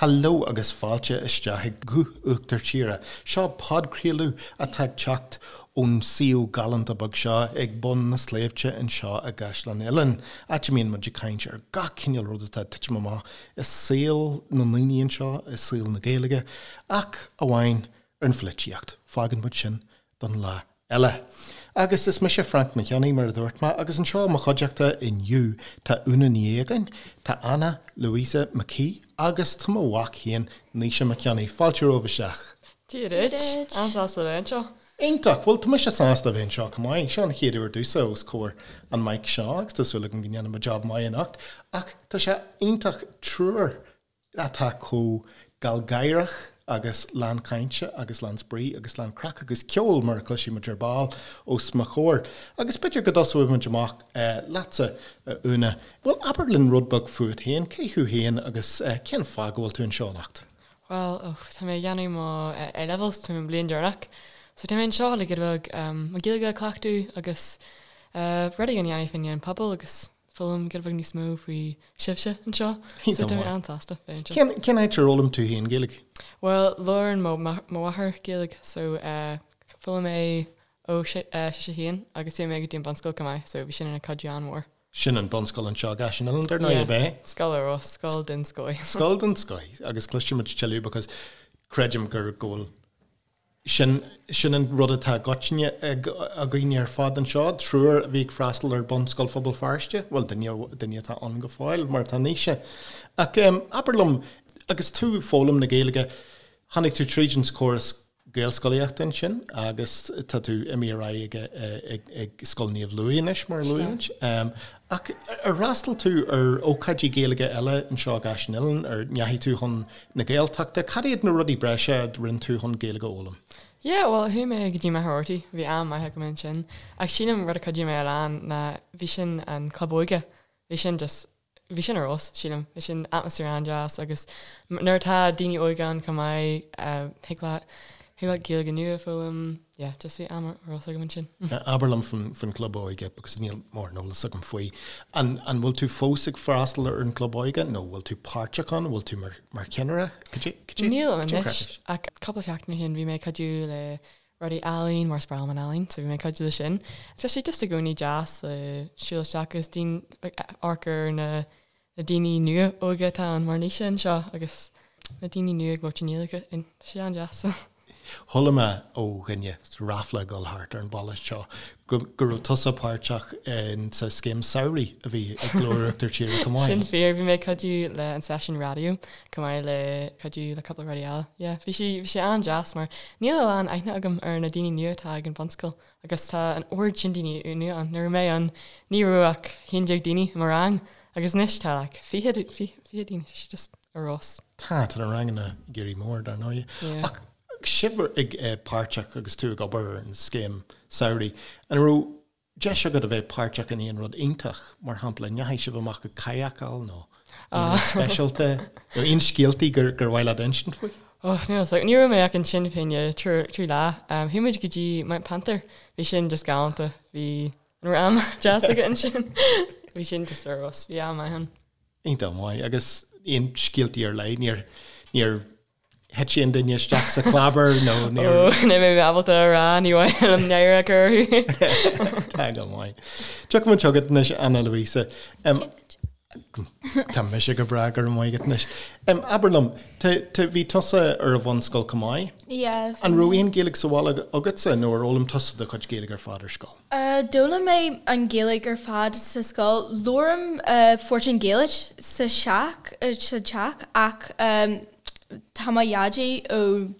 Hello agus fáilte isteach ag Guth Uachtar Tíre. Seo podchraoladh atá ag teacht ón suíomh galánta beag seo ag bun na sléibhte anseo i gCaisleán Uidhilín, áit a mbíonn muid ag caint ar gach cineál rud atá ag titim amach i saol na ndaoine anseo, i saol na Gaeilge, ach amháin ar an pholaitíocht. Fágann muid sin don lá eile. Agus is mise Frainc Mac Cionnaith, mar a dúirt mé, agus anseo i mo chuideachta inniu tá Úna Ní Aogáin, tá Anna Louisa McKee agus tá mo mhac féin, Naoise Mac Cionnaith. Fáilte romhaibh isteach. Dia duit. An-sásta a bheith anseo. Iontach! Bhuel, tá mise sásta a bheith anseo chomh maith. Seo an chéad uair domhsa os comhair an mic seo agus tá súil agam go ndéanfaidh mé job maith anocht. Ach tá sé iontach triúr atá chomh gealgháireach agus lán cainte agus lán spraoi agus lán craic agus ceoil, mar a chloisfidh muid ar ball, os mo chomhair. Agus b'fhéidir go dtosóidh muid amach leatsa, a Úna. Bhuel, abair linn rud beag fút féin, cé thú féin agus cén fáth go bhfuil tú anseo anocht? Bhuel, oh, tá mé ag déanamh mo A-levels, tá mé i mo bhliain deireanach. So tá mé anseo le giota beag mo Ghaeilge a chleachtadh agus rudaí a dhéanamh faoin an pobal agus foghlaim giota beag níos mó faoi sibhse anseo. So tá mé an-sásta bheith anseo. Cén, cén áit ar fhoghlaim tú féin Gaeilge? Bhuel, labhrann mo, mo mháthair Gaeilge so eh, foghlaim mé ó si, eh, sise féin agus chuaigh mé go dtí an bunscoil chomh maith so bhí sin ina cuidiú an-mhór. Sin an bunscoil anseo i gCaiseal Uidhilín, dar ndóigh, ab ea? Scoil ar fheabhas, scoil den scoth. Scoil den scoth agus cloisfidh muid tuilleadh because creidim gur, go bhfuil Sin, sin an rud atá i gcoitinne ag, againn ar fad anseo, triúr a bhí ag freastal ar Bunscoil Phobal Feirste, bhuel, duine, duine atá ann go fóill, mar atá Naoise. Ach abair liom, agus tú ag foghlaim na Gaeilge, tháinig tú tríd an córas Gaelscolaíochta ansin agus tá tú imithe ar aghaidh ag, ag, ag Scoil Naomh Louis anois, mar a luaigh muid. Ach ar fhreastail tú ar ócáidí Gaeilge eile anseo i gCaiseal Uidhilín? Ar ndeachaigh tú chun na Gaeltachta? Cad iad na rudaí breise a rinne tú chun Gaeilge a fhoghlaim? Yeah, bhuel, chuaigh mé go dtí Machaire Rabhartaigh, bhí am maith agam ansin. Ach sílim rud a chuidigh mé a lán ná bhí sin an club óige, bhí sin just bhí sin ar fheabhas, sílim. Bhí sin atmaisféar an-deas agus nuair atá daoine óga ann chomh maith, thig leat, thig leat Gaeilge nua a foghlaim, yeah, just bhí am ar fheabhas agam ansin. Abair liom faoin gclub óige because níl mórán eolas agam faoi. An, an bhfuil tú fós ag freastal ar an gclub óige nó bhfuil tú páirteach ann, bhfuil tú mar, mar cheannaire? Cad é, cad é, Nílim cad é anois ach cúpla seachtain ó shin bhí mé ag cuidiú le rudaí ealaín mar is breá liom an ealaín so bhí mé ag cuidiú le sin. Tá sé just i gcónaí deas le siúl isteach agus daoine ag amharc ar na na daoine nua óga atá ann mar Naoise anseo agus na daoine nua ag labhairt i nGaeilge tá sé an-deas. Chuala mé ó dhuine, ráfla ag dul thart ar an bhaile seo, go go raibh tusa páirteach in sa scéim samhraidh a bhí ag Glór Uachtar Tíre chomh maith. Sin fíor, bhí mé ag cuidiú le an seisiún raidió chomh maith le cuidiú le cúpla rudaí eile. Yeah, bhí sé, bhí sé an-deas mar níl a lán aithne agam ar na daoine nua atá ag an bhunscoil agus tá an oiread sin daoine nua ann. Nuair a bhí mé ann ní raibh ach 11 daoine i mo rang agus anois tá like 20, 20 daoine, tá sé just ar fheabhas. Tá, tá na ranganna ag éirí mór dar ndóigh. Yeah. Ach sibh ag páirteach agus tú ag obair ar an scéim samhraidh, an raibh deis agat a bheith páirteach in aon rud iontach, mar shampla, an ndeachaigh sibh amach ag kayakáil nó aon rud speisialta nó aon scéaltaí gur gur mhaith leat insint faoi? Oh, níl fhios agam. Ní raibh mé ach ansin fá choinne trí lá. Chuaigh muid go dtí Mount Panther. Bhí sin just galánta. Bhí an raibh am deas againn ansin. Bhí sin just ar fheabhas. Bhí am maith ann. Iontach maith. Agus aon scéaltaí ar leith? Níor níor thit aon duine isteach sa chlábar nó níor. Ó, níl mé ábalta a rá, ní mhaith liom náire a chur orthu. Tá go maith. Tiocfaidh muid chugat anois, Anna Louisa. Tá mise go breá, go raibh maith agat anois. Abair liom, bhí tusa ar an bhunscoil chomh maith? Yeah. An raibh aon Ghaeilge sa bhaile agatsa nó ar fhoghlaim tusa do chuid Gaeilge ar fad ar scoil? D'fhoghlaim mé an Ghaeilge ar fad sa scoil. Labhraím Portaingéilis sa teach, sa teach ach tá mo dhaidí ó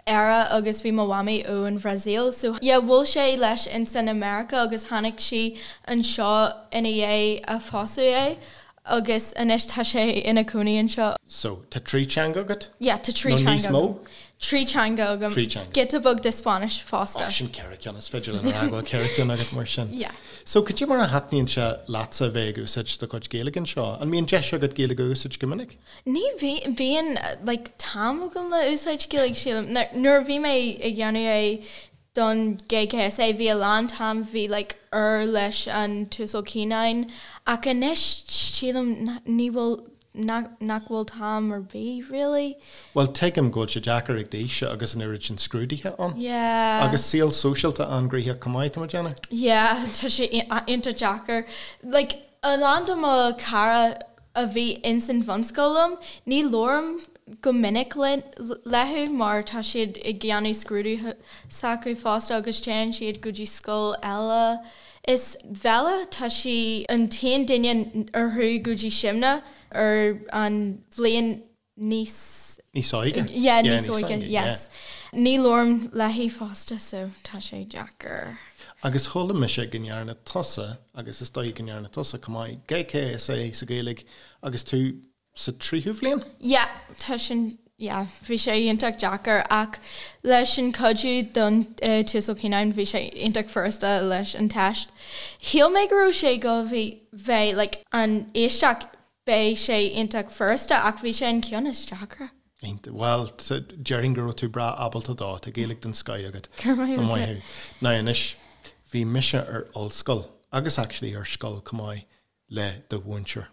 Éire agus bhí mo mhamaí ó an Bhrasaíl so yeah bhuail sé leis insan America agus tháinig sí anseo ina dhiaidh a phósadh é agus anois tá sé ina cónaí anseo. So, tá trí teanga agat? Yeah, tá trí teanga agam. Nó níos mó? Trí teanga agam. Trí teanga. Giota beag de Spáinnis fosta. Oh, sin ceithre ceann, is féidir linn a rá go bhfuil ceithre ceann agat mar sin. Yeah. So, cad é mar a thaitníonn sé leatsa a bheith ag úsáid do chuid Gaeilge anseo? An mbíonn deis agat Gaeilge a úsáid go minic? Ní bhíonn, like, t-am agam le úsáid Gaeilge, sílim. Nuair a bhí mé ag dhéanamh é don GKSA bhí a lán t-am bhí like uair leis an tUasal Cianáin ach anois sílim ní bhfuil. nach bhfuil t-am ar bith really. Bhuel tuigim go bhfuil sé deacair ag d'aois agus an oiread sin scrúduithe ann. Yeah. Agus saol sóisialta an-ghnoitheach chomh maith, tá mé ag déanamh. Yeah, tá sé iontach deacair. Like, a lán de mo chara a bhí ins an bhunscoil liom, ní labhraím go minic leo mar tá siad ag déanamh scrúduithe s'acu fosta agus téann siad go dtí scoil eile. Is Bella, tá sí an t-aon duine ar chuaigh go dtí Simna ar an bhliain níos. Níos óige? Yeah, níos óige, yes. Ní labhraím léi fosta so tá sé deacair. Agus chuala mise go ndearna tusa, agus is dóigh go ndearna tusa chomh maith, GCSE sa Ghaeilge agus tú sa tríú bhliain? Yeah, tá sin, yeah, bhí sé iontach deacair ach leis an cuidiú don tUasal Cianáin bhí sé iontach furasta leis an teist. Shíl mé go raibh sé go bhí bheith like an éisteacht beidh sé iontach furasta ach bhí sé an ceann is deacra. Iontach. Bhuel, déarfainn go raibh tú breá ábalta dó, tá Gaeilge den scoith agat. Go raibh maith agat. Maith thú. Now anois, bhí mise ar ollscoil, agus actually ar scoil chomh maith, le do mhúinteoir.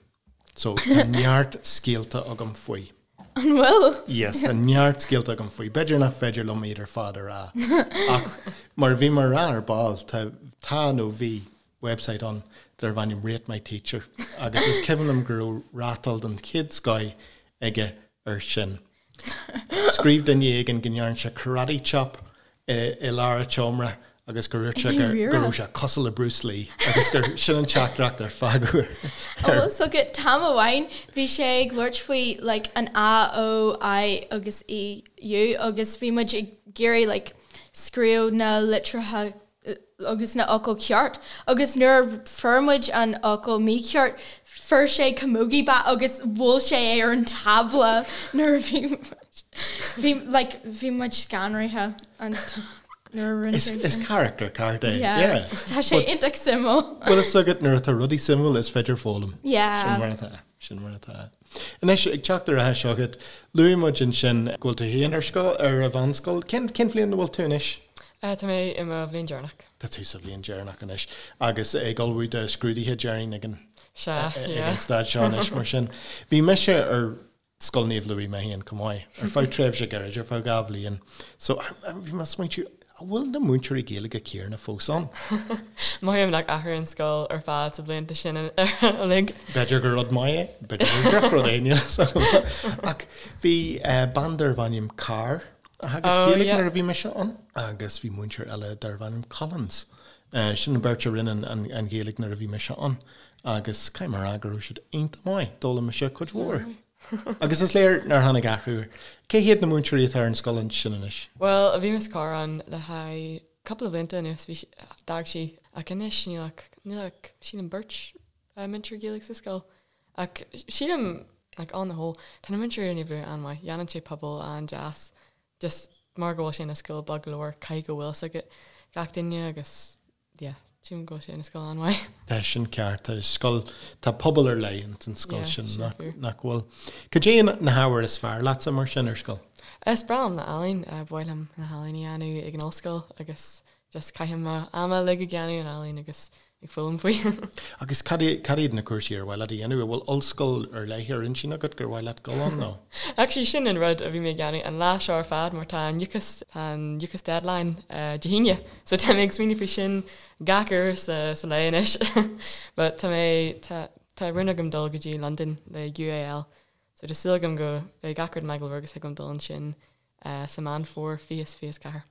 So, tá neart scéalta agam faoi. An bhfuil? Yes, tá neart scéalta agam faoi. B'fhéidir nach féidir liom iad ar fad a rá. Ach mar a bhí mé a rá ar ball, tá, tá nó bhí website ann darbh ainm Rate My Teacher agus is cuimhin liom go raibh rátáil den chéad scoith aige air sin. Scríobh duine éigin go ndearna sé karate chop i lár an tseomra agus gur dhúirt sé go raibh sé cosúil le Bruce Lee agus gur sin an teachtaireacht ar fágadh air. Bhfuil fhios agat t-am amháin bhí sé ag labhairt faoi like an A, O, I agus E, U agus bhí muid ag iarraidh like scríobh na litreacha agus na fhocail ceart agus nuair a fuair muid an fhocal mícheart fuair sé camogie bat agus bhuail sé é ar an tábla nuair a bhí muid bhí like bhí muid scanraithe an nuair a rinne sé sin. Is character ceart é. Yeah. Tá sé iontach suimiúil. Bhfuil fhios agat nuair atá rudaí suimiúil is féidir foghlaim. Yeah. Sin mar atá. Sin mar atá. Anois, ag teacht ar ais chugat, luaigh muid ansin go bhfuil tú féin ar scoil, ar an mheánscoil. Cén, cén bhliain a bhfuil tú anois? Tá mé i mo bhliain deireanach. Tá tú sa bhliain deireanach anois agus ag ullmhú do scrúduithe déarfainn ag an, Sea, ag yeah. an staid seo anois mar sin. Bhí mise ar Scoil Naomh Louis mé féin chomh maith, ar feadh tréimhse gairid, ar feadh 2 bhliain. So, bhí mé ag smaointiú, an bhfuil na múinteoirí Gaeilge céanna fós ann? Mothaím nach athraigh an scoil ar fad sa bhlianta sin uilig. B'fhéidir gur rud maith é, b'fhéidir gur drochrud é, níl fhios agam. Ach bhí bean darbh ainm Carr a theagasc Oh, Gaeilge yeah. nuair a bhí mise ann agus bhí múinteoir eile darbh ainm Collins. Sin an bheirt a rinne an Ghaeilge nuair a bhí mise ann agus caithfidh mé a rá go raibh siad iontach maith, d'fhoghlaim mise cuid mhór. Agus is léir nár tháinig athrú air. Cé hiad na múinteoirí atá ar an scoil ansin anois? Bhuel, bhí Miss Carr ann le haghaidh cúpla blianta anuas, bhí sí, d'fhág sí, ach anois níl ach, níl ach, sílim beirt múinteoir Gaeilge sa scoil. Ach sílim, like on the whole, tá na múinteoirí ar Naomh Louis an-mhaith, dhéanann sé pobal an-deas, just mar go bhfuil sé ina scoil beag go leor, caithfidh go bhfuil fhios ag gach duine agus yeah, sílim go bhfuil sé ina scoil an-mhaith. Tá sin ceart, tá scoil, tá pobal ar leith ins an scoil Yeah, sin sin nach, fíor. nach bhfuil. Cad é na hábhair is fearr leatsa mar sin ar scoil? Is breá liom na healaín, ba mhaith liom na healaín a dhéanamh ag an ollscoil agus just caithim mo am uilig ag déanamh an ealaín agus ag foghlaim faoi. Agus cad cad iad na cúrsaí ar mhaith leat a dhéanamh? An bhfuil ollscoil ar leith ar intinn agat gur mhaith leat dul ann nó? Actually sin an rud a bhí mé ag déanamh an lá seo ar fad mar tá an UCAS, tá an UCAS deadline Dé hAoine so tá mé ag smaoineamh faoi sin gach uair sa sa lae anois. But tá mé, tá tá rún agam dul go dtí Londain le UAL so tá súil agam go beidh gach rud maith go leor agus thig liom dul ansin sa Meán Fómhair 2024.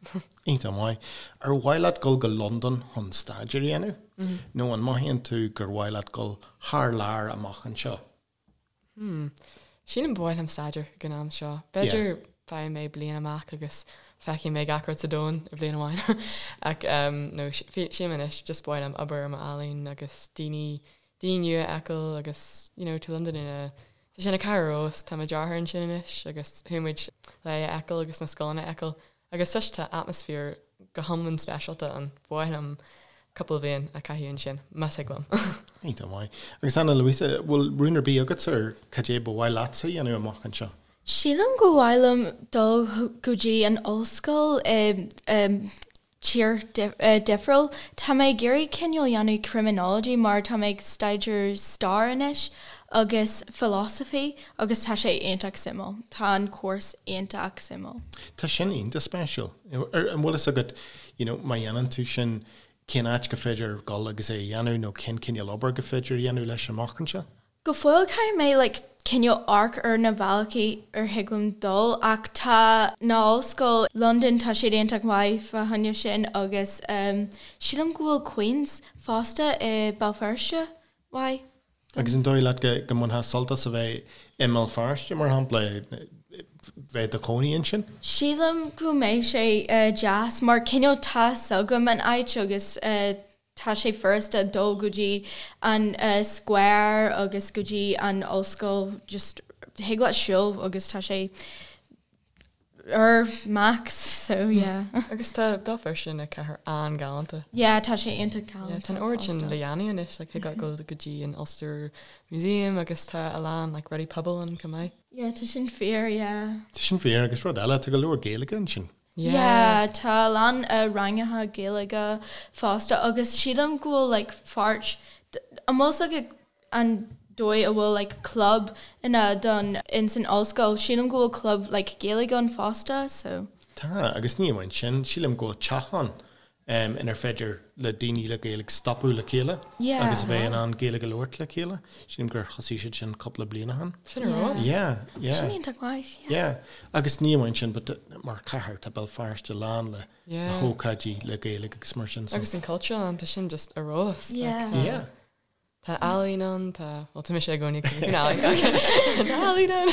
Iontach maith. Ar mhaith leat dul go Londain chun staidéar a dhéanamh? Nó an mothaíonn tú gur mhaith leat dul thar lear amach anseo? Hmm. Sílim ba mhaith liom staidéar ag an am seo. B'fhéidir faighidh mé bliain amach agus feicfidh mé gach rud sa domhan i bhliain amháin. Ach no, sílim anois just ba mhaith liom obair ar m'ealaín agus daoine, daoine nua a fheiceáil agus you know, tá Londain ina Tá sé ina cathair ar fheabhas, tá mo deartháir ansin anois agus chuaigh muid le é a fheiceáil agus na scoileanna a fheiceáil agus just tá atmaisféar go hiomlán speisialta ann. Ba mhaith liom cúpla bliain a chaitheamh ansin, más thig liom. Iontach maith. Agus Ana Luisa, bhfuil rún ar bith agatsa ar cad é ba mhaith leatsa a dhéanamh amach anseo? Sílim go mhaith liom dul go dtí an ollscoil i. tír difriúil. Tá mé ag iarraidh cineál dhéanamh criminology mar tá mé ag staidéar stair anois agus philosophy agus tá sé iontach suimiúil. Tá an course iontach suimiúil. Tá sin iontach spéisiúil. An bhfuil fhios agat, you know, má dhéanann tú sin, cén áit go féidir dul agus é a dhéanamh nó cén cineál obair go féidir a dhéanamh leis amach anseo? Go fóill caithfidh mé like cineál amharc ar na bealaí ar thig liom dul ach tá na ollscoil London tá siad iontach maith fá choinne sin agus ehm sílim go bhfuil Queen's fosta i Béal Feirste maith don. Agus an dóigh leat go go mbainfeá sult as a bheith i mBéal Feirste mar shampla, bheith i do chónaí ansin? Sílim go mbeidh sé deas mar cineál tá fhios agam an áit agus eh Tá sé furasta dul go dtí an square agus go dtí an ollscoil, just thig leat siúl agus tá sé ar max so yeah. Agus tá Béal Feirste ina cathair an-ghalánta. Yeah, tá sé iontach galánta. Yeah, tá an oiread sin le dhéanamh anois, like thig leat dul go dtí an Ulster Museum agus tá a lán like rudaí pobail ann chomh maith. Yeah, tá sin fíor, yeah. Tá sin fíor agus rud eile, tá go leor Gaeilge ansin. Yeah, tá a lán ranganna Gaeilge fosta agus sílim go bhfuil like pháirt, an bhfuil fhios agat an dóigh a bhfuil like club ina don in san ollscoil, sílim go bhfuil club like Gaeilge ann fosta so. Tá, agus ní amháin sin, sílim go bhfuil teach ann inar féidir le daoine le Gaeilge stopadh le chéile agus a bheith in ann Gaeilge a labhairt le chéile. Sílim gur thosaigh siad sin cúpla bliain ó shin. Sin ar fheabhas. Yeah, yeah. Sin iontach maith, yeah. Yeah. Agus ní amháin sin, but mar chathair tá Béal Feirste lán le hócáidí le Gaeilge agus mar sin. Agus an Cultúrlann, tá sin just ar fheabhas. Yeah. Yeah. Tá ealaín ann, tá, bhuel tá mise i gcónaí ag caint faoin ealaín ach tá ealaín ann!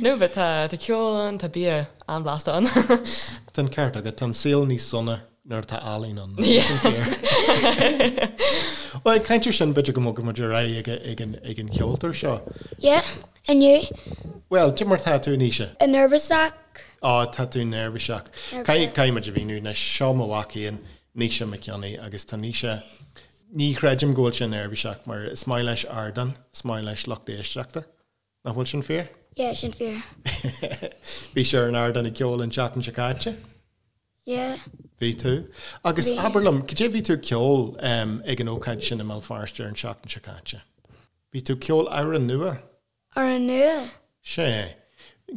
No but tá, tá ceol ann, tá bia an-bhlasta ann. Tá an ceart agat, tá an saol níos sona nuair atá ealaín ann, nach bhfuil sin fíor? Bhuel, ag caint ar sin, b'fhéidir go mbogfaidh muid ar aghaidh ag an, ag an cheoltóir seo. Yeah, inniu. Bhuel, cad é mar tá tú, Naoise? Neirbhíseach. Á, tá tú neirbhíseach. Caithfidh, caithfidh muid a mhíniú anois, seo mo mhac féin, Naoise Mac Cionnaith, agus tá Naoise, Ní chreidim go bhfuil sé neirbhíseach mar is maith leis ardán, is maith leis lucht éisteachta. Nach bhfuil sin fíor? Yeah, sin fíor. Bhí sé ar an ardán ag ceol an tseachtain seo caite? Yeah. Bhí tú. Agus Bhí. abair liom, cad é bhí tú ag ceol ag an ócáid sin i mBéal Feirste ar an seachtain seo caite? Bhí tú ag ceol amhrán nua? Amhrán nua? Sea.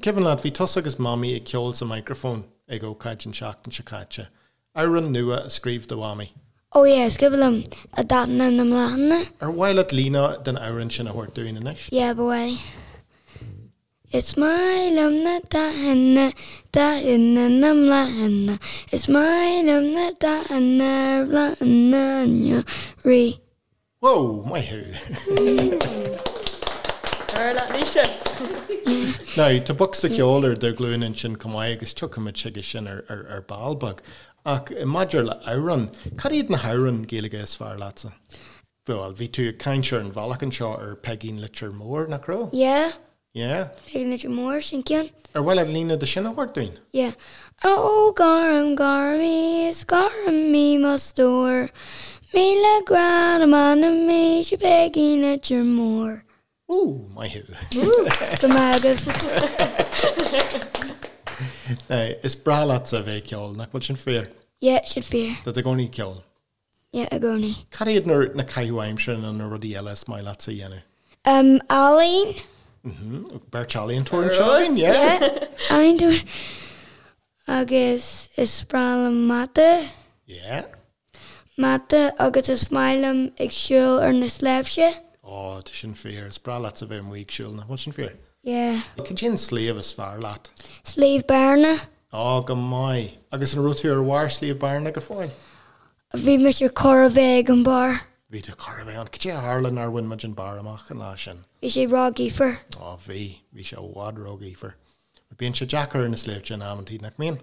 Cuimhin leat, bhí tusa agus Mamaí ag ceol sa microphone ag ócáid an tseachtain seo caite. Amhrán nua a scríobh do Mhamaí. Oh yeah, is cuimhin liom, Dathanna na mBláthanna. Ar mhaith leat líne den amhrán sin a thabhairt dúinn anois? Yeah, ba mhaith. Is maith liom na dathanna, dathanna na mbláthanna, is maith liom na dathanna ar bhláthanna an earraigh. Whoa, maith thú! Ar leat Naoise! Now, tá bocsa ceoil ar do ghlúin ansin chomh maith agus tiocfaimid chuige sin ar ball beag. Ach maidir le amhráin, cad iad na hamhráin Gaeilge is fearr leatsa? Bhuel, bhí tú ag caint ar an bhealach anseo ar Peigín Leitir Móir, nach raibh? Yeah. Yeah. Peigín Leitir Móir, sin ceann. Ar mhaith leat líne de sin a thabhairt dúinn? Yeah. Ó gorm, gorm í, is gorm í mo stór, 1000 grá do m'anam mise Peigín Leitir Móir. Ooh, maith thú. Go maith agaibh. Now, is breá leatsa a bheith ag ceol, nach bhfuil sin fíor? Yeah, sin fíor. Tá tú i gcónaí ag ceol. Yeah, i gcónaí. Cad iad na na caitheamh aimsire nó na rudaí eile is maith leatsa a dhéanamh? Um, ealaín. Mhm, beirt ealaíontóir anseo againn, yeah. Yeah, ealaíontóir. Agus is breá liom mata. Yeah. Mata agus is maith liom ag siúl ar na sléibhte. Ó, tá sin fíor. Is breá leatsa bheith amuigh ag siúl, nach bhfuil sin fíor? Yeah. Cad é an sliabh is fearr leat? Sliabh Bearna. Ó, go maith. Agus an raibh tú ar bharr Sliabh Bearna go fóill? Bhí mise chóir a bheith ag an barr. Bhí tú chóir a bheith ann. Cad é a tharla nár bhain muid an barr amach an lá sin? Bhí sé ró-ghaofar. Ó bhí, bhí sé i bhfad ró-ghaofar. Bíonn sé deacair ar na sléibhte in amantaí, nach mbíonn?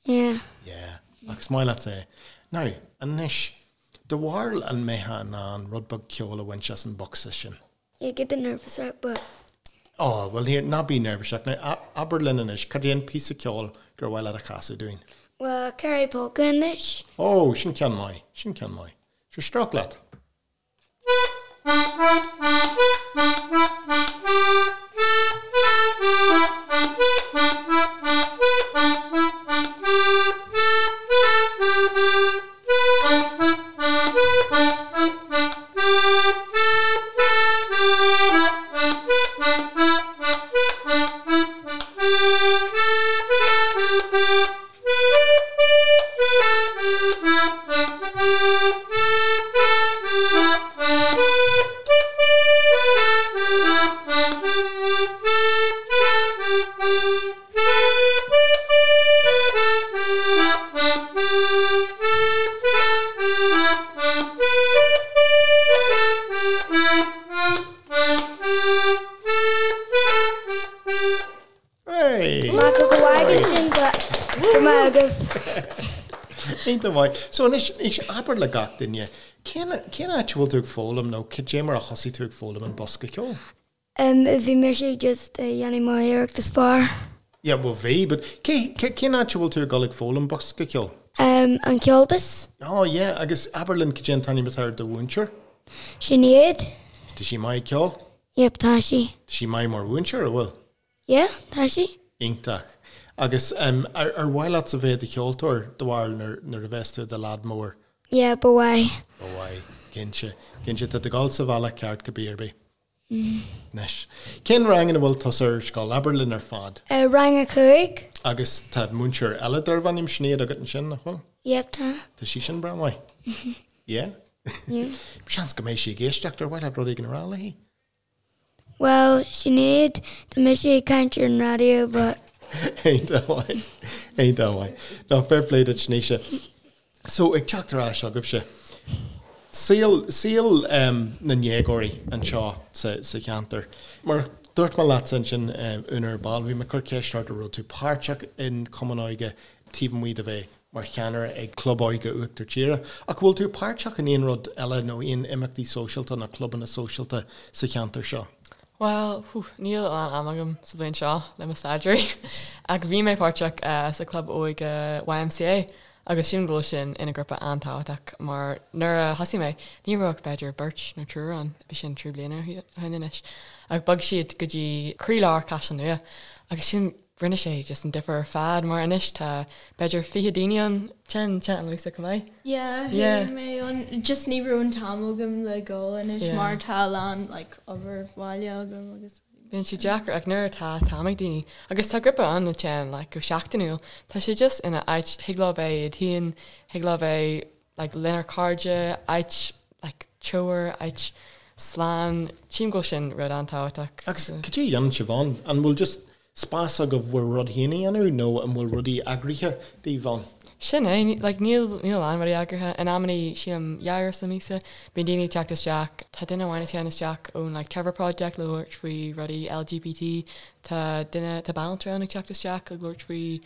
Yeah. Yeah. Ach is maith leatsa é. Now, anois, do bharúil an mbeifeá in ann rud beag ceoil a bhaint as an bhocsa sin? Yeah, get neirbhíseach, but. Ó, bhuel, here, ná bí neirbhíseach. Now, abair linn anois, cad é an píosa ceoil gur mhaith leat a chasadh dúinn? Bhuel, Kerry Polka anois. Ó, sin ceann maith, sin ceann maith. Sure, stróic leat. agaibh. Iontach maith. So anois, anois abair le gach duine, cén, cén áit a bhfuil tú ag foghlaim nó cad é mar a thosaigh tú ag foghlaim an bosca ceoil? Em, bhí mise just ag déanamh mo iarracht is fearr. Yeah, well bhí, but cé, cé, cén áit a bhfuil tú ag dul ag foghlaim bosca ceoil? Em, an Comhaltas. Oh yeah, agus abair linn cad é an t-ainm atá ar do mhúinteoir? Sinéad. Tá sí maith ag ceol? Yep, tá sí. Tá sí maith mar mhúinteoir, an bhfuil? Yeah, tá sí. Iontach. Agus em, ar, ar mhaith leatsa bheith i do cheoltóir, do bharúil, nuair, nuair a bheas tú i do leaid mór? Yeah, ba mhaith. Ba mhaith. Cinnte. Cinnte, tá tú ag dul sa bhealach ceart cibé ar bith. Anois, cén rang ina bhfuil tusa ar scoil? Abair linn ar fad. Rang a 5. Agus tá múinteoir eile darbh ainm Sinéad agat ansin, nach bhfuil? Yep, tá. Tá sí sin breá maith. Yeah? Yeah. Seans go mbeidh sí ag éisteacht, ar mhaith leat rud éigin a rá léi? Bhuel, Sinéad, tá mise ag caint ar an raidió but. Iontach maith. Iontach maith. No, fair play duit, Naoise. So, ag teacht ar ais chugaibhse, saol, saol na ndéagóirí anseo sa, sa cheantar. Mar a dúirt mé leatsa ansin, Úna, ar ball, bhí mé ag cur ceist ort an raibh tú páirteach in Cumann Óige taobh amuigh de bheith mar cheannaire ag Club Óige Uachtar Tíre. Ach an bhfuil tú páirteach in aon rud eile nó aon imeachtaí sóisialta nó clubanna sóisialta sa cheantar seo? Bhuel, whew, níl a lán ama agam sa bhliain seo le mo staidéar ach bhí mé páirteach sa chlub óige YMCA agus sílim go bhfuil sin ina grúpa an-tábhachtach mar nuair a thosaigh mé ní raibh ach b'fhéidir beirt nó triúr ann, bhí sin 3 bliana ó shin anois, ach bhog siad go dtí croílár Caisleán Nua agus sin rinne sé just an difear ar fad mar anois tá b'fhéidir 20 daoine ann, téann téann Annalisa chomh maith. Yeah, Yeah. chuaigh mé ann, just ní raibh an t-am agam le dhul anois Yeah. mar tá a lán like obair bhaile agam agus Bíonn sé deacair ach nuair atá t-am ag daoine agus tá grúpa ann a théann like go seachtainiúil, tá sé just ina áit thig leo bheith iad féin, thig leo bheith like lenár cairde, áit like teamhair, áit slán, sílim go bhfuil sin rud an-tábhachtach. Agus cad é a dhéanann sibh ann? An bhfuil just spás agaibh bhur rud féin a dhéanamh nó an bhfuil rudaí eagraithe daoibh ann? Sin é, like níl níl a lán rudaí eagraithe. In amannaí, sílim, dhá uair sa míosa, bíonn daoine ag teacht isteach. Tá duine amháin ag teacht isteach ón like Trevor Project le labhairt faoi rudaí LGBT. Tá duine, tá banaltra ann ag teacht isteach ag labhairt faoi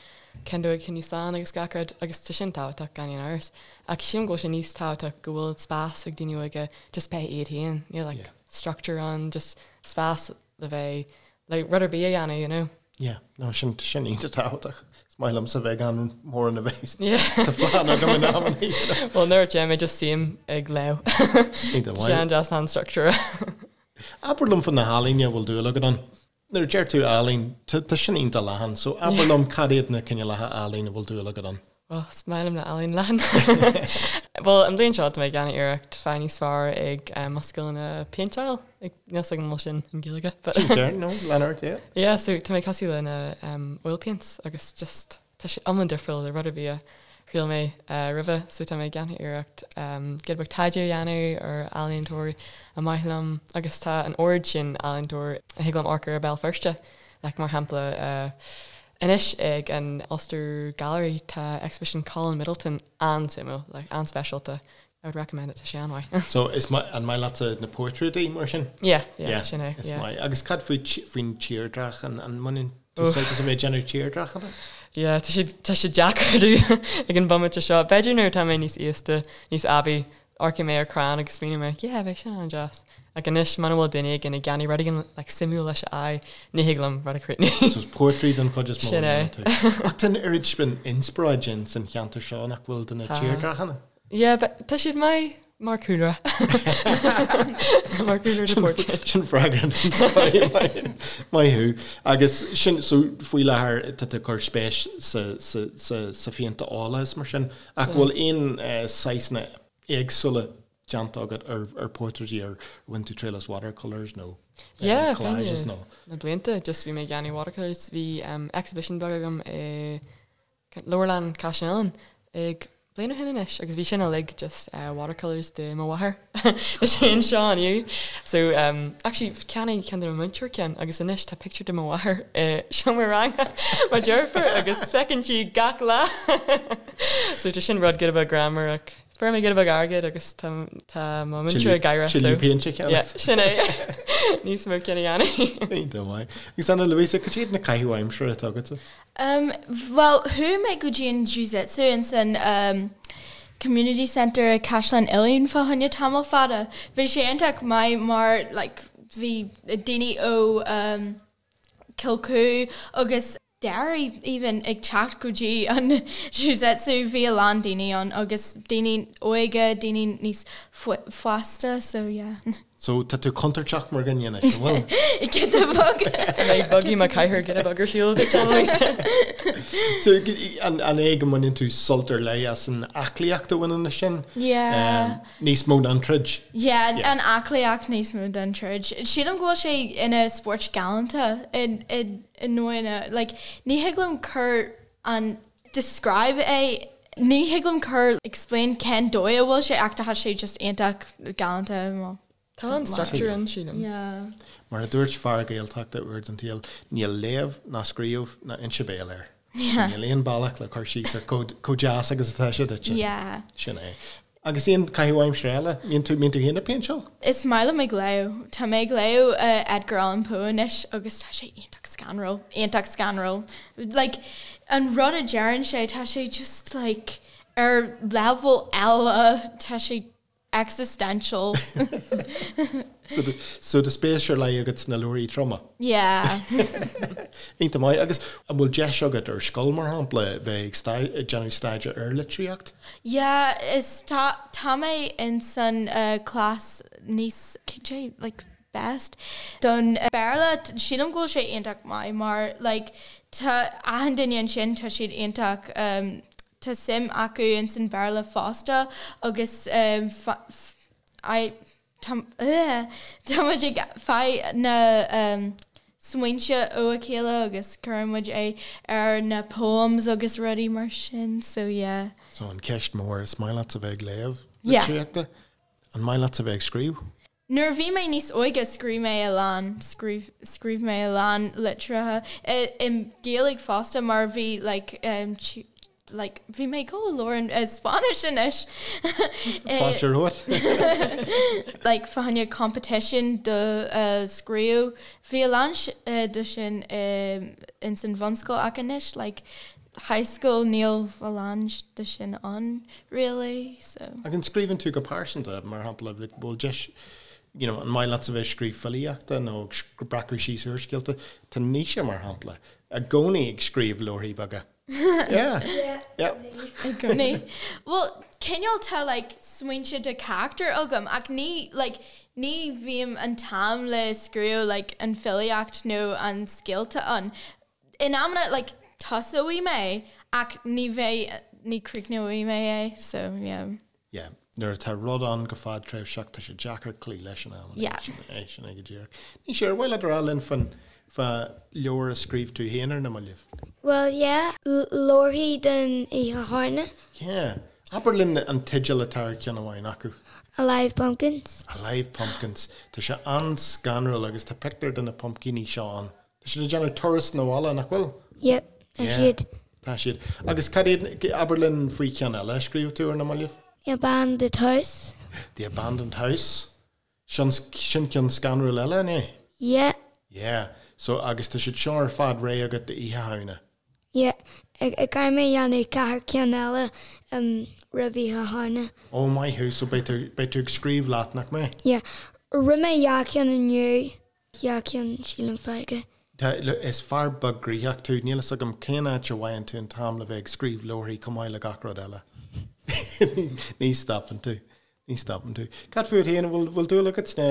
cén dóigh coinneáil slán agus gach rud agus tá sin tábhachtach gan aon amhras. Ach sílim go bhfuil sé níos tábhachtach go bhfuil spás ag daoine óga just bheith iad féin. Níl like structure ann, just spás le bheith le rud ar bith a dhéanamh, you know. Yeah, no, sin, sin iontach tábhachtach. Is maith liomsa bheith gan mórán a bheith sa phlean agam in amannaí, you know. Well, nuair a téim mé just suím ag léamh. Iontach maith. Sin just an structure. Abair liom faoi na healaíona a bhfuil dúil agat ann. Nuair a deir tú ealaín, tá sin iontach leathan, so abair liom cad iad na cineálacha ealaíon a bhfuil dúil agat ann. Bhuel, is maith liom na ealaín leathan. Bhuel, an bhliain seo tá mé ag déanamh iarracht fáil níos fearr ag mo scileanna péinteáil. Níl 's agam an bhfuil sin in Gaeilge. But Sin ceart, no, lean ort, yeah. Yeah, so tá mé ag tosú le na oil paints agus just tá sé iomlán difriúil le rud ar bith a thriail mé roimhe. So tá mé ag déanamh iarracht giota beag taighde a dhéanamh ar ealaíontóirí a maith liom agus tá an oiread sin ealaíontóir a thig liom amharc ar i Béal Feirste. Like mar shampla Anois ag an Ulster Gallery tá exhibition Colin Middleton an-suimiúil, like an-speisialta. I would recommend it, tá sé an-mhaith. So is maith, an maith leatsa na portráidí mar sin? Yeah, yeah, sin é, yeah. Is maith. Agus cad faoi, faoin tírdhreach, an, an mbaineann tú sult as a bheith ag déanamh tírdhreachanna? Yeah, tá sé, tá sé deacair domh ag an bomaite seo. B'fhéidir nuair atá mé níos aosta, níos aibí, Amharcfaidh mé ar crann agus smaoineoidh mé, yeah, bheadh sin an-deas. Ach anois, muna bhfuil duine éigin ag déanamh rud éigin like suimiúil leis a aghaidh, ní thig liom rud a chríochnú. So portrait den chuid is mó Sin a é. dhéanann tú. Ach tá an oiread sin inspioráid in san cheantar seo nach bhfuil do na Tá. tírdhreachanna? Yeah, but tá siad maith mar cúlra. Mar cúlra do portrait. Sin freagra den scoth. Maith maith thú. Agus sin, so faoi láthair tá tú ag cur spéis sa, sa, sa, sa phéint ola is mar sin. Ach bhfuil aon saghsanna éagsúla déanta agat ar portráidí ar bhain tú triail as watercolours nó collages nó? Na blianta just bhí mé ag déanamh watercolours. Bhí exhibition beag agam i Leabharlann Chaisleán Uidhilín ag bliain ó shin anois agus bhí sin uilig just watercolours de mo mháthair. Is é anseo inniu. So actually cheannaigh ceann de mo mhúinteoir ceann agus anois tá pictiúr de mo mháthair i seomra ranga mo deirfiúr agus feiceann sí gach lá. So tá sin rud giota beag greannmhar ach fuair mé giota beag airgid agus tá tá mo mhúinteoir ag gáire so Tuilleadh péinte a yeah, cheannacht. sin é. Níos mó cinn a dhéanamh. Iontach maith. Agus Ana Luisa, cad iad na caithimh aimsire atá agatsa? Bhuel, chuaigh mé go dtí an Jiu-Jitsu ins an Community Centre i Caisleán Uidhilín fá choinne tamall fada. Bhí sé iontach maith mar like bhí daoine ó Cill Cú agus Derry even ag teacht go dtí an Jiu-Jitsu bhí a lán daoine ann agus daoine óga, daoine níos fásta so yeah. So tá tú contúirteach mar dhuine anois, an bhfuil? Giota beag. An mbeidh buggy mo chathaoir giota beag ar shiúl duit, Annalise? So an é go mbaineann tú sult ar leith as an aclaíocht a bhaineann leis sin? Yeah. Níos mó ná an troid? Yeah, an aclaíocht níos mó ná an troid. Sílim go bhfuil sé ina spórt galánta i i ndóigh like ní thig liom cur an describe é ní thig liom cur explain cén dóigh a bhfuil sé ach tá sé just iontach galánta well. Tá an structure ann sílim. Yeah. Mar a dúirt fear Gaeltachta uair den tsaol, níl léamh ná scríobh ná inse béil air. Yeah. Níl aon bealach le cur síos ar chomh deas agus atá sé duitse. Yeah. Sin é. Agus aon chaitheamh aimsire eile? Mbíonn tú, mbíonn tú féin ag péinteáil? Is maith liom ag léamh. Tá mé ag léamh Edgar Allan Poe anois agus tá sé iontach scanrúil, iontach scanrúil. Like, an rud a deireann sé, tá sé just like ar level eile, tá sé existential. So tá spéis ar leith agat sna leabharthaí troma? Yeah. Iontach maith. Agus an bhfuil deis agat ar scoil, mar shampla, bheith ag déanamh staidéar ar litríocht? Yeah, is tá tá mé in san class níos cad é like best don Béarla. Sílim go bhfuil sé iontach maith mar like tá achan duine ansin tá siad iontach tá suim acu ins an Béarla fosta agus I tá tá muid ag fáil na smaointe ó a chéile agus cuireann muid é ar na poems agus rudaí mar sin so yeah. So an ceist mór, is maith leatsa bheith ag léamh litríochta? An maith leatsa bheith ag scríobh? Nuair a bhí mé níos óige scríobh mé a lán, scríobh, scríobh mé a lán litreacha i, i Gaeilge fosta mar bhí like like bhí mé ag dul a labhairt i Spáinnis anois. Fáilte romhat. Like fá choinne competition do scríobh, bhí a lán de sin ins an bhunscoil ach anois like high school níl a lán de sin ann really so. Ach an scríobhann tú go pearsanta, mar shampla, like bhfuil deis, you know, an maith leatsa bheith ag scríobh filíochta nó ag breacadh síos úrscéalta? Tá Naoise, mar shampla, i gcónaí ag scríobh leabharthaí beaga. Yeah. Yeah. I gcónaí. Bhuel, cineál tá like smaointe de character agam ach ní like ní bhím an t-am le scríobh like an filíocht nó an scéalta ann. In amanna like tosóidh mé ach ní bheidh, ní críochnóidh mé é so yeah. Yeah, nuair atá rud ann go fadtréimhseach tá sé deacair cloí leis in amanna. Yeah. Sin é, sin é go díreach. Naoise, ar mhaith leat a rá linn fán, fá leabhar a scríobh tú féin ar na mallaibh? Bhuel yeah, leabharthaí don Oíche Shamhna. Yeah. Abair linn an teideal atá ar cheann amháin acu. Alive Pumpkins. Alive Pumpkins. Tá sé an-scanrúil agus tá pictiúr de na pumpcíní seo ann. Tá siad ag déanamh turas 'na bhaile, nach bhfuil? Yep, tá siad. Tá siad. Agus cad iad, abair linn faoi cheann eile a scríobh tú ar na mallaibh? The Abandoned House. The Abandoned House. Sin, sin ceann scanrúil eile, an é? Yeah. Yeah. So, agus tá siad seo ar fad réidh agat d'Oíche Shamhna? Yeah. Caithfidh mé a dhéanamh ceathair ceann eile roimh Oíche Shamhna. Oh, maith thú. So beidh tú, beidh tú ag scríobh leat, nach mbeidh? Yeah. Rinne mé dhá cheann inniu. Dhá cheann sílim fágtha. Tá, is fear beag gnoitheach tú, níl fhios agam cén áit a bhfaigheann tú an t-am le bheith ag scríobh leabharthaí chomh maith le gach rud eile. Ní stopann tú. Ní stopann tú. Cad fút féin, an bhfuil, bhfuil dúil agat sna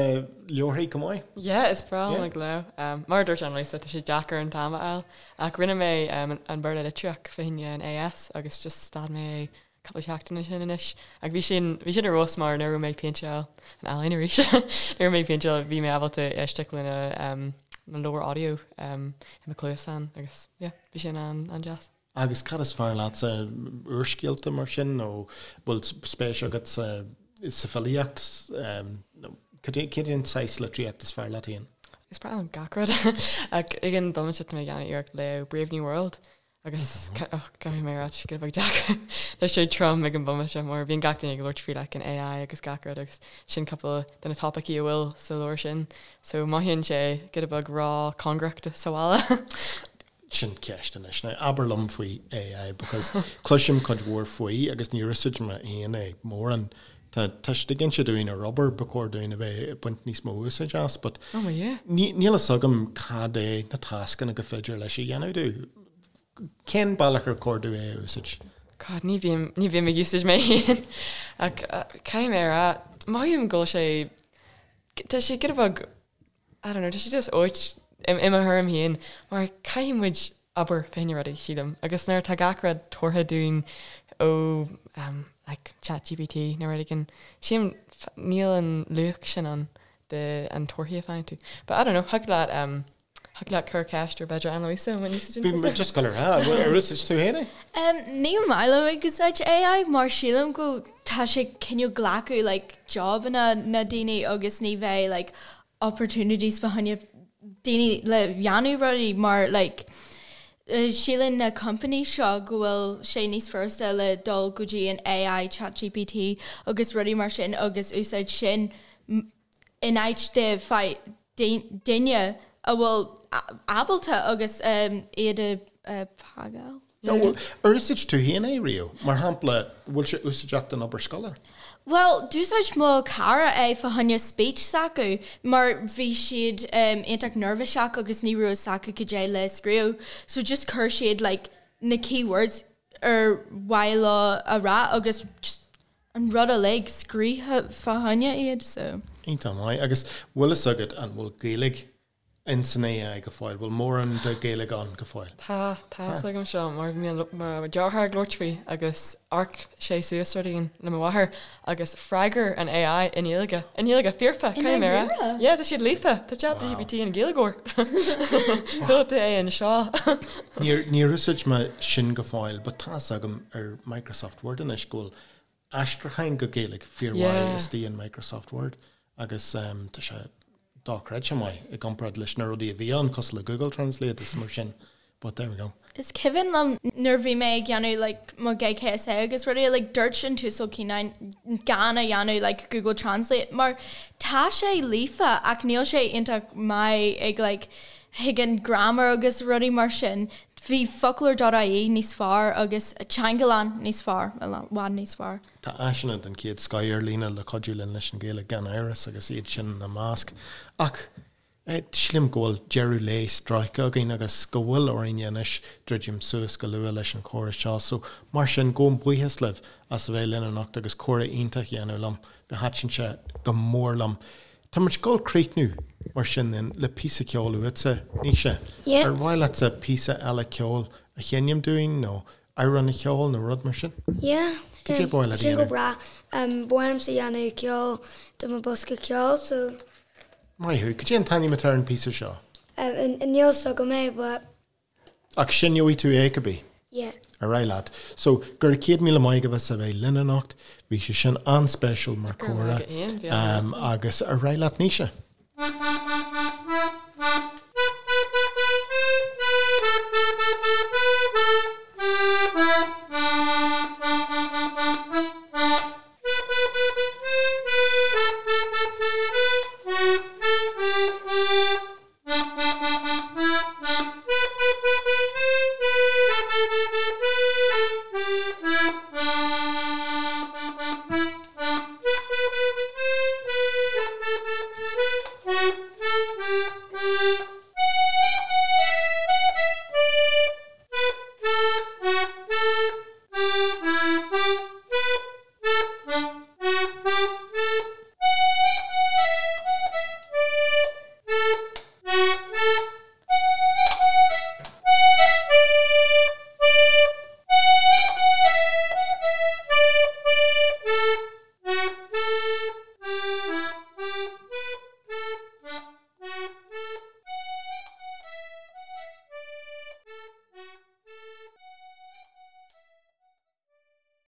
leabharthaí chomh maith? Yeah, is breá liom ag léamh. Mar a dúirt Annalisa, tá sé deacair an t-am a fháil. Ach rinne mé an Béarla Litríocht fá choinne an AS agus just stad mé é cúpla seachtain ó shin anois. Ach bhí sin, bhí sin ar fheabhas mar nuair a raibh mé ag péinteáil, an ealaín arís, nuair a raibh mé ag péinteáil bhí mé ábalta éisteacht lena na leabhair audio i mo chluasán agus yeah, bhí sin an-deas. Agus cad is fearr leatsa, úrscéalta mar sin nó bhfuil spéis agat sa sa filíocht nó cad é cad é an saghas litríocht is fearr leat féin? Is breá liom gach rud ach ag an bomaite tá mé ag déanamh iarracht léamh Brave New World. Agus caithfidh mé a rá, tá sé giota beag deacair. Tá sé trom ag an bomaite mar bíonn gach duine ag labhairt faoi like an AI agus gach rud agus sin cúpla de na topaicí a bhfuil sa leabhar sin. So mothaíonn sé giota beag ró-chóngarach do sa bhaile. Sin ceist anois. Now abair liom faoi AI because cloisim cuid mhór faoi agus níor úsáid mé féin é mórán. Tá tá siad ag inse dúinn ar obair ba chóir dúinn a bheith ag baint níos mó úsáid as but Oh my yeah. ní níl fhios agam cad é na tascanna go féidir leis a dhéanamh domh. Cén bealach ar chóir domh é a úsáid? God, ní bhím ní bhím ag úsáid mé féin ach caithfidh mé a rá mothaím go bhfuil sé tá sé giota beag I don't know, tá sé just ait i mo thuairim féin mar caithfidh muid obair fá choinne rudaí, sílim, agus nuair atá gach rud tabhartha dúinn ó um, like ChatGPT nó rud éigin, sílim níl an luach sin ann de an torthaí a faigheann tú. But I don't know, thig leat um, thig leat cur ceist ar b'fhéidir Anna-Lisa an úsáideann Bhí mé just ag dul a rá, ar úsáid tú féin é? Um, ní maith liom ag úsáid AI mar sílim go tá sé cineál glacadh like jobanna na daoine agus ní bheidh like opportunities fá choinne daoine le dhéanamh rudaí mar like síleann na companies seo go bhfuil sé níos furasta le dul go dtí an AI ChatGPT agus rudaí mar sin agus úsáid sin in áit de duine a bhfuil ábalta agus iad a phagáil. Nó bhfuil, ar úsáid tú féin é riamh? Mar shampla, bhfuil sé úsáideach don obair scoile? Bhuel, d'úsáid mo chara é fá choinne speech s'acu mar bhí siad iontach neirbhíseach agus ní raibh fhios acu cad é le scríobh so just chuir siad like na key words ar mhaith leo a rá agus just an rud uilig scríofa fá choinne iad so. Iontach maith. Agus bhfuil fhios agat an bhfuil Gaeilge in san AI go fóill? Bhfuil mórán de Ghaeilge ann go fóill? Tá, tá fhios agam seo mar bhí mo dheartháir ag labhairt faoi agus amharc sé suas rud éigin le mo mháthair agus freagair an AI i nGaeilge, i nGaeilge foirfe, caithfidh mé a rá. Yeah, tá siad líofa, tá ChatGPT ina Ghaeilgeoir. Chuala tú é anseo. Níor, níor úsáid mé sin go fóill but tá fhios agam ar Microsoft Word anois go bhfuil aistriúcháin go Gaeilge fíormhaith istigh in Microsoft Word agus tá sé dochreidte maith i gcomparáid leis na rudaí a bhí ann cosúil le Google Translate is mar sin but there we go. Is cuimhin liom nuair bhí mé ag dhéanamh like mo GCSE agus rudaí like dúirt an tUasal Cianáin gan a dhéanamh like Google Translate mar tá sé líofa ach níl sé iontach maith ag like thuigeann grammar agus rudaí mar sin. Bhí foclóir dot ie níos fearr agus Teangalann níos fearr, i bhfad níos fearr. Tá áiseanna den chéad scoth ar líne le cuidiú linn leis an Ghaeilge gan amhras agus iad sin ina measc. Ach sílim go bhfuil deireadh lae sroichte againn agus go bhfuil orainn anois druidim suas go luath leis an chomhrá seo. So mar sin, gabhaim buíochas libh as a bheith linn anocht agus comhrá iontach a dhéanamh liom. Thaitin sé go mór liom. Tá muid ag dul críochnú mar sin then le píosa ceoil uaitse, Naoise. Yeah. Ar mhaith leatsa píosa eile ceoil a sheinm dúinn nó amhrán a cheol nó rud mar sin? Yeah. Cad é ba mhaith leat a Sin go dhéanamh? breá. Ba mhaith liomsa dhéanamh ceol do mo bosca ceoil so. Maith thú. Cad é an t-ainm atá ar an píosa seo? Níl fhios agam é but. Ach seinneoidh tú é cibé? Yeah. Ar aghaidh leat. So, go raibh 100,000 maith agaibh as a bheith linn anocht. Bhí sé sin an-speisial mar Go raibh chomhrá. maith agat, Ian. Bhí an-mhaith. Agus ar aghaidh leat, Naoise.